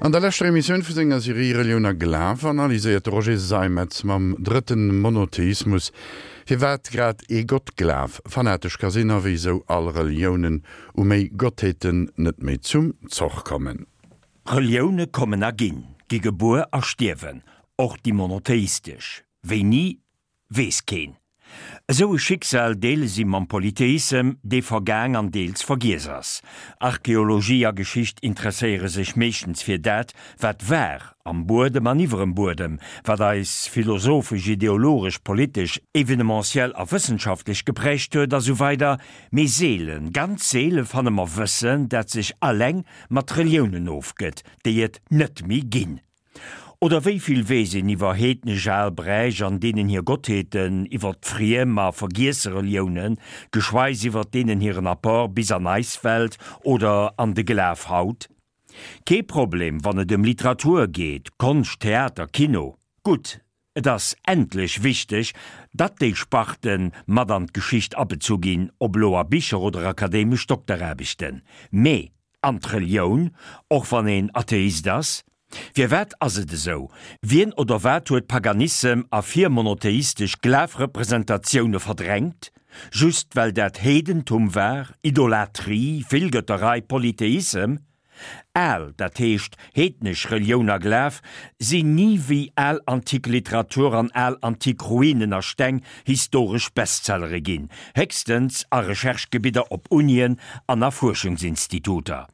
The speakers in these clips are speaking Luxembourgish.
An der leschter Emissioun vu senger Serie Relioun a Glaf analyséiert de Roger Seimetz mam drëtten Monotheismus, firwat grad ee Gottglaf fanatesch ka sinn a wéisou all Reliounen u méi Gottheeten net méi zum Zoch kommen. Relioune kommen a ginn, gi gebuer a stierwen, och déi monotheistesch. Wéini, weess keen. Esou e Schicksal deele si mam Polytheissem, dee vergaang an deels vergiess ass. Archeologie a Geschicht interesséiere sech meeschtens fir dat, wat war, am Buedem an iwwerem Buedem, wat eis philosophesch, ideologesch, politesch, evenementiell a wëssenschaftlech geprägt huet, a sou weider Mee seelen, ganz seele fanne mer Wëssen, dat sech alleng mat Reliounen ofgëtt, déi et net méi ginn. Oder wéi vill weess een iwwer heednesch al Bräich an deenen hir Gottheeten, iwwer friem a vergiesse Reliounen, geschweis iwwer deenen hiren Apport bis an eis Welt oder an de Glaf haut? Kee Problem, wann et ëm Literatur geet, Konscht, Theater, Kino. Gutt, et ass endlech wichteg, datt déi Sparte mat an d'Geschicht abezu ginn, ob elo a Bicher oder akademesch Dokteraarbechten. Mee An d'Relioun, och wann een Atheist ass? Firwat ass et esou? Wien oder wat huet Paganissem a virmonotheistesch Glafrepresentatioune verdrängt? Just well dat Heedentum war, Idolatrie, Villgëtterei, Polytheissem? Al, dat heescht heednesch Relioun a Glaf sinn ni wéi al antik Literatur an al antik Ruinen a Steng historesch Bestsellere ginn, héchstens a Recherche-Gebidder op Unien an a Fuerschungsinstituter.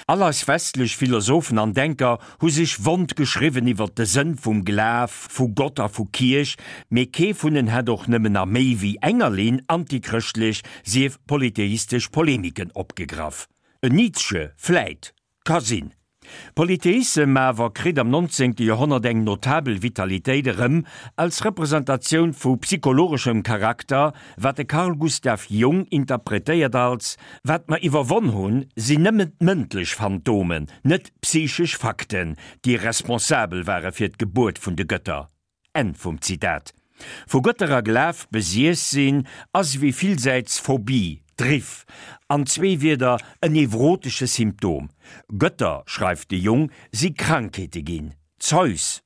All eis westlech Philosophen an Denker hu sech wond geschriwwen iwwer de Sënn vum Glaf, vu Gott a vu Kierch, mee kee vun en hätt och nëmmen a méi wéi enger Linn antichrëschtlech, sief polytheistesch Polemiken opgegraff. En Nietzsche vläit, Ka sinn. Polytheissem awer kritt am 19. Joerhonnert eng notabel Vitalitéit erëm als Representatioun vu psychologeschem Charakter, wat de Carl Gustav Jung interpretéiert als, Wat mer iwwerwonn hunn, sinn nëmmen d'mëndlech Phantomen, net d'psychesch Fakten, déi responsabel ware fir d'Gebuert vun de Gëtter. Enn vum Zitat. Vu Gëtter a Glaf besiess sinn ass ewéi villsäits Phobie, Driff, an zwee Wierder en nevrotesche Symptom. Gëtter, schreift de Jung, si Krankheete ginn. Zeus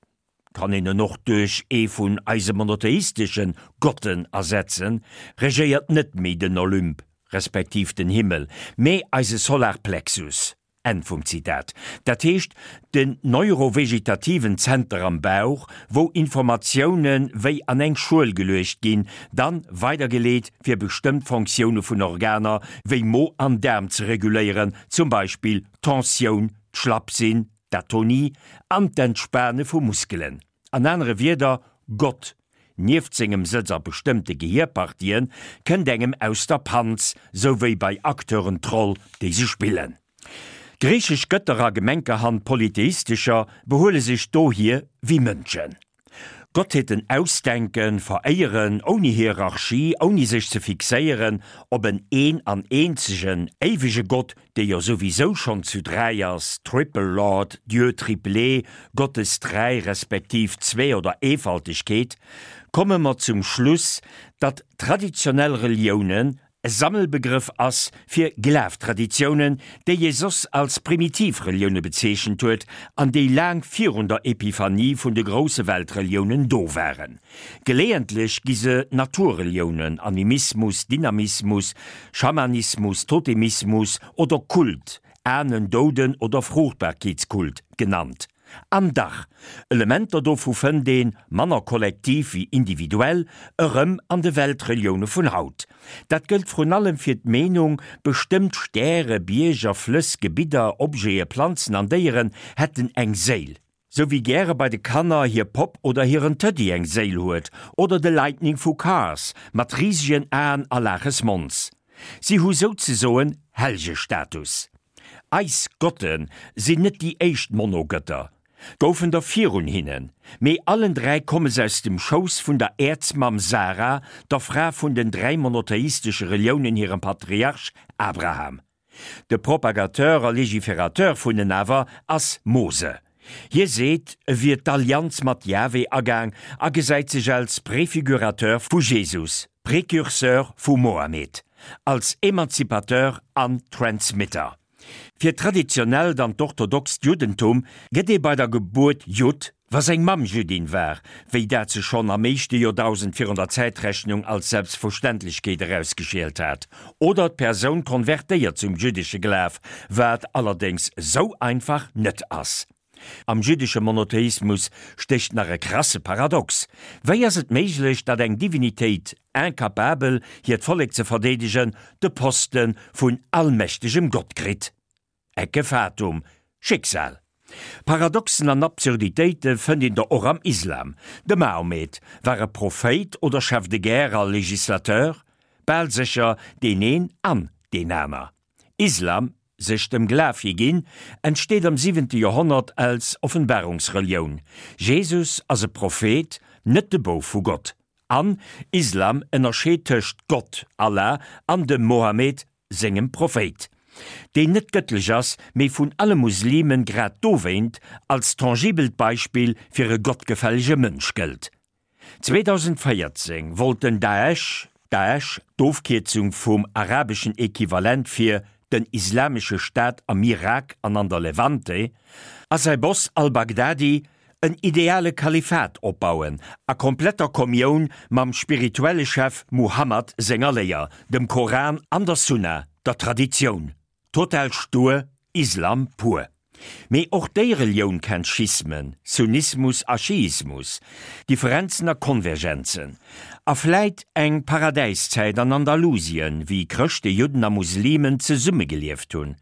kann een en och duerch ee vun eise monotheistesche Gotten ersetzen, regéiert net méi den Olymp, respektiv den Himmel, mee eise Solarplexus. Enn vum Zitat. Dat heescht, den neurovegetativen Zenter am Bauch, wou Informatioune wéi an eng Schuel geluecht ginn, dann weidergeleet fir bestëmmt Fonctioune vun Organer wéi Mo an Daarm ze reguléieren, zum Beispill d'Tensioun, d'Schlappsinn, d'Atonie an d'Entspane vu Muskelen. An anere Wierder, Gott, nieft sengem Sëtz a bestëmmte Gehierpartien, kënnt engem aus der Panz, sou wéi bei Acteuren d'Roll, déi se spillen. Griichesch Gëtter a gemenkerhand polytheistescher behuele sech dohier wéi Mënschen. Gottheeten ausdenken, veréieren, ouni Hierarchie, ouni sech ze fixéieren op en een an eenzegen, éiwege Gott, dee jo souwisou schonn zu 3 ass, Triple Lord, Dieu triplé, Gottes Dräi respektiv Zwee oder Eefaltegkeet, komme mer zum Schluss, datt traditionell Reliounen e Sammelbegrëff ass fir Glaf-Traditiounen, déi ee soss als primitiv Relioune bezeechent huet an déi laang virun der Epiphanie vun de grousse Weltreliounen do waren. Geleeëntlech gi se Naturreliounen, Animismus, Dynamismus, Schamanismus, Totemismus oder Kult, Ahnen-, Douden oder Fruchtbarkeetskult, genannt. An dach, Elementer dovu fënnt een, manner kollektiv wéi individuell, erëm an de Weltrelioune vun haut. Dat gëllt vrun allem fir d'Meenung, bestëmmt Stäre, Bierger, Flëss, Gebidder, Objete, Planzen an Déieren hätten eng Séil. Sou wéi gäre bei de Kanner hir Popp oder hiren Tëddy eng Séil huet, oder de Lightning vu Cars mat risegen Aen a Laaches Mons. Si hu souzesoen Hellgestatus. Eis Gotte sinn net déi éischt Monogëtter, goufen der virun hinnen, mee allen 3 komme se aus dem Schouss vun der Äerzmamm Sara, der Fra vun den 3 monotheistesche Reliounen hirem Patriarch Abraham. De Propagateur a Légiférateur vun en awer ass Mose. Hie seet, e wier d'Allianz mat Jahwe agaang a gesäit sech als Préfigurateur vu Jesus, Précurseur vu Mohammed, als Emanzipateur an Transmitter. Fir d'traditionellt an d'orthodoxt Juddentum gëtt ee bei der Gebuert Judd, wa seng Mamm Jüddin war, wéi dat sech schonn am éischte Joerdausend virun der Zäitrechnung als Selbstverständlechkeet erausgeschielt hat, oder d'Persoun konvertéiert zum jüddesche Glaf, wat allerdéngs sou einfach net ass. Am jüddesche Monotheismus stécht nach e krasse Paradox, Wéi ass et méiglech, datt eng Divinitéit, incapabel hiert Vollek ze verdeedegen, de Poste vun allmächtegem Gott kritt? Ecce fatum, Schicksal. Paradoxen an Absurditéite fënnt een der och am Islam. De Mahomet, war e Prophéit oder Chef de guerre a Législateur? Bal sécher deen een an deen aner. Islam, sech dem Glaf higinn, entsteet am siwente Joerhonnert als Offenbarungsrelioun. Jesus ass e Prophet, net de Bouf vu Gott. An Islam ënnerscheet tëscht Gott, Allah, an dem Mohammed, sengem Prophéit, deen net gëttlech ass, mee vun alle Muslimen grad dowéint als tangibelt Beispill fir e gottgefällege Mënsch gëllt. 2014 wollt den Daesh, Daesh, d'Ofkierzung vum arabeschen Equivalent fir den Islamesche Staat am Irak an an der Levante, a säi Boss al-Baghdadi en ideale Kalifat opbauen, a kompletter Kommioun mam spirituelle Chef Muhammad senger Léier, dem Koran an der Sunna, der Traditioun. Total stur, Islam pur. Mee och déi Relioun kennt Schismen, Sunnismus a Schiismus, Differenzen a Konvergenzen. A vläit eng Paradäiszäit an Andalusien, wéi Chrëschte, Judden a Muslimen zesummegelieft hunn.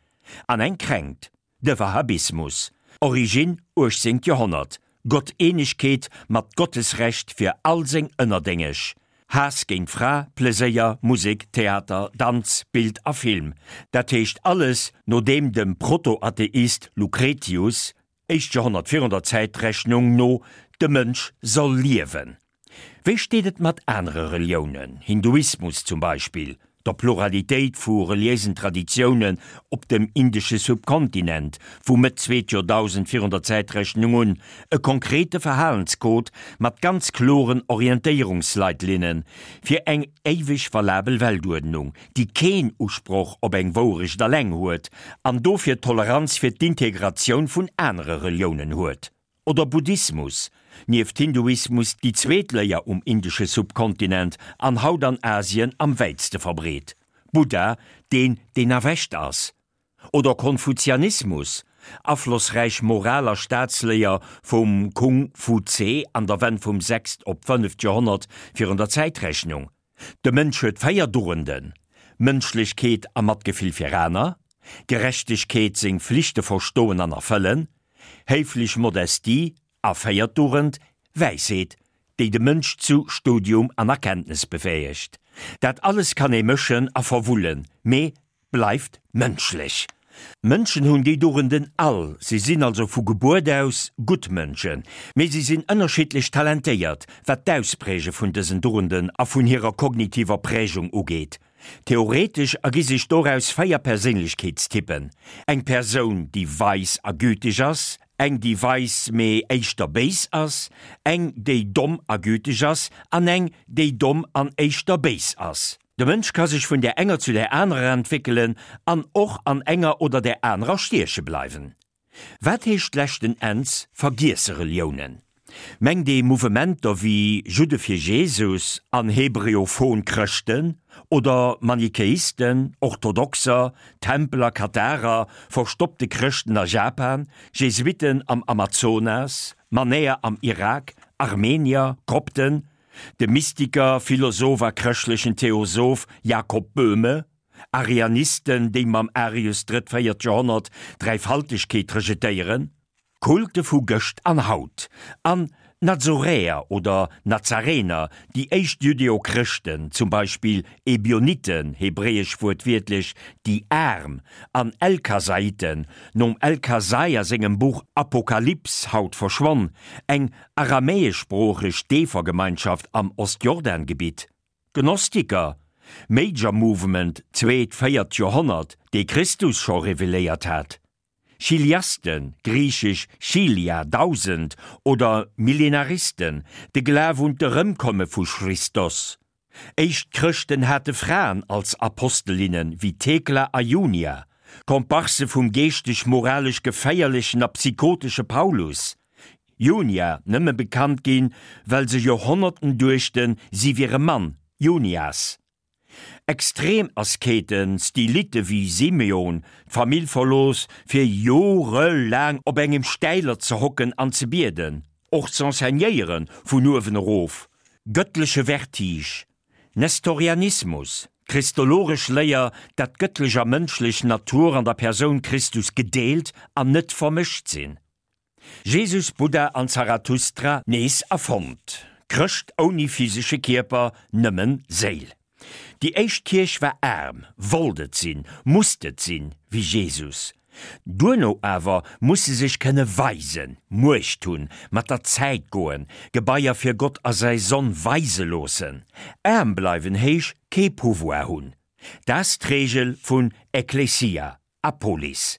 An eng Kränkt, de Wahhabismus, Origine 18. Joerhonnert, Gotteenegkeet mat Gottesrecht fir all seng Ënnerdéngeg, Haass géint Fra, Pleséier, Musek, Theater, Danz, Bild a Film, dat heescht alles no deem dem Protoatheist Lucretius, éischt Joerhonnert virun der Zäitrechnung, no de Mënsch soll liewen. Wéi steet et mat anere Reliounen, Hinduismus zum Beispill, der Pluralitéit vu reliéisen Traditiounen op dem indesche Subkontinent vu Mëtt zweet Joerdausend virun der Zäitrechnung un, e konkrete Verhalenscode mat ganz kloren Orientéierungsleitlinne fir eng éiweg valabel Weltuerdnung, déi keen Usproch op eng Wourecht alleng huet an dofir Toleranz fir d'Integratioun vun anere Reliounen huet. Oder Buddhismus, nieft Hinduismus déi zweet Léier um indesche Subkontinent an haut an Asien am wäitste verbreet. Buddha, deen deen erwächt ass. Oder Konfuzianismus, aflossräich Moral a Staatsléier vum Kung Fu Tse an der Wenn vum sechst op fënneft Joerhonnert virun der Zäitrechnung. De Mënsch huet 4 Dugenden, Mënschlechkeet a Matgefill fir aner, Gerechtegkeet, seng Flichte verstoen an erfëllen, héiflech Modestie a véiert Dugend, Wäisheet, déi de Mënsch zu Studium an Erkenntnes befäegt. Dat alles kann ee mëschen a verwullen, mee bleift mënschlech. Mënschen hunn déi Dugenden all, si sinn also vu Gebuert aus gutt Mënschen, mee si sinn ënnerschiddlech talentéiert, wat d'Auspräge vun dësen Dugenden a vun hirer kognitiver Prägung ugeet. Theoretesch ergi sech doraus 4 Perséinlechkeetstypen, eng Persoun, déi weis a güteg ass, eng, déi weis, mee éischter béis ass, eng, déi domm a güteg ass, an eng, déi domm an éischter béis ass. De Mënsch ka sech vun där enger zu där anerer entwéckelen an och an enger oder där anerer stieche bleiwen. Wat heescht leschten Enns vergiesse Reliounen? Mengt ee Mouvementer wéi Judde fir Jesus an hebreophon Chrëschten oder Manichäisten, Orthodoxer, Tempeler, Katharer, verstoppte Chrëschten a Japan, Jesuitten am Amazonas, Manäer am Irak, Armenier, Kopten, de Mystiker, Philosoph a chrëschtlechen Theosoph Jakob Böhme? Arianisten, déi mam Arius, drëtt, véiert Joerhonnert, d'Dräifaltegkeet rejetéieren, Kulte vu gëscht an haut, an Nazoräer oder Nazarener, déi éischt Judeo-Chrëschten, zum Beispill Ebioniten, hebräesch wuertwiertlech déi Aarm, an Elkasaiten, nom Elkasai a sengem Buch Apokalyps, haut verschwonn, eng aramäeschsproocheg Deefergemeinschaft am Ostjordangebitt. Gnostiker, Major Movement, zweet, véiert Joerhonnert, dee Christus scho reveléiert hat. Chiliasten, griichesch chilia, 1000, oder Millenaristen, de Glaf un d'Erëmkomme vu Christos. Éischt Chrëschten hate Fraen als Apostelinnen, wéi Thekla a Junia. Komparse vum geeschteg-moralesch geféierlechen a psychotesche Paulus. Junia, nëmme bekannt ginn, well se Joerhonnerten duechten, si wier e Mann, Junias. Extrem Asketen, Stylite wéi Simeon, d'Famill verlooss, fir jorelaang op engem Stäiler ze hocken an ze bieden, och z'enseignéieren, vun uewen erof, gëttleche Vertige, Nestorianismus, d'christologesch Léier, dat gëttlech a mënschlech Natur an der Persoun Christus gedeelt an net vermëscht sinn. Jesus, Buddha an Zarathustra nees erfonnt. Chrëscht ouni physesche Kierper, nëmmen Séil. Déi éischt Kierch war aarm, wollt et sinn, musst et sinn, wéi Jesus. Duerno awer muss se sech kënne weisen, Muecht hunn, mat der Zäit goen, Gebaier fir Gott a säi Sonn weise loossen. Aarm bleiwen heesch kee Pouvoir hunn. Dat d'Reegel vun Ekklesia. A Polis.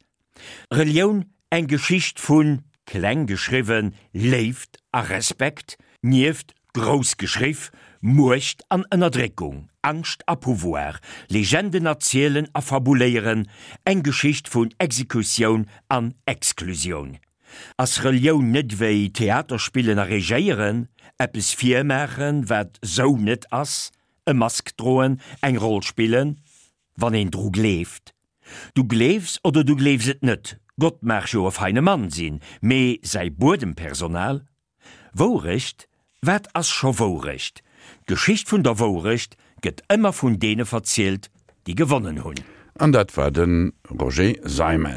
Relioun, eng Geschicht vun, kleng geschriwwen, Léift a Respekt, nieft, grouss geschriff, Muecht an Ënnerdréckung, Angscht a Pouvoir, Legenden erzielen a fabuléieren, eng Geschicht vun Exekutioun an Exklusioun. Ass Relioun net wéi Theater spillen a regéieren, eppes virmaachen, wat sou net ass, e Mask droen, eng Roll spillen? Wann een dru gleeft. Du gleefs oder du gleefs et net, Gott mag jo e feine Mann sinn, mee säi Buedempersonal? Wourecht? Wat ass scho Wourecht? D'Geschicht vun der Wourecht gëtt ëmmer vun deene verzielt, déi gewonnen hunn. An dat war de Roger Seimetz.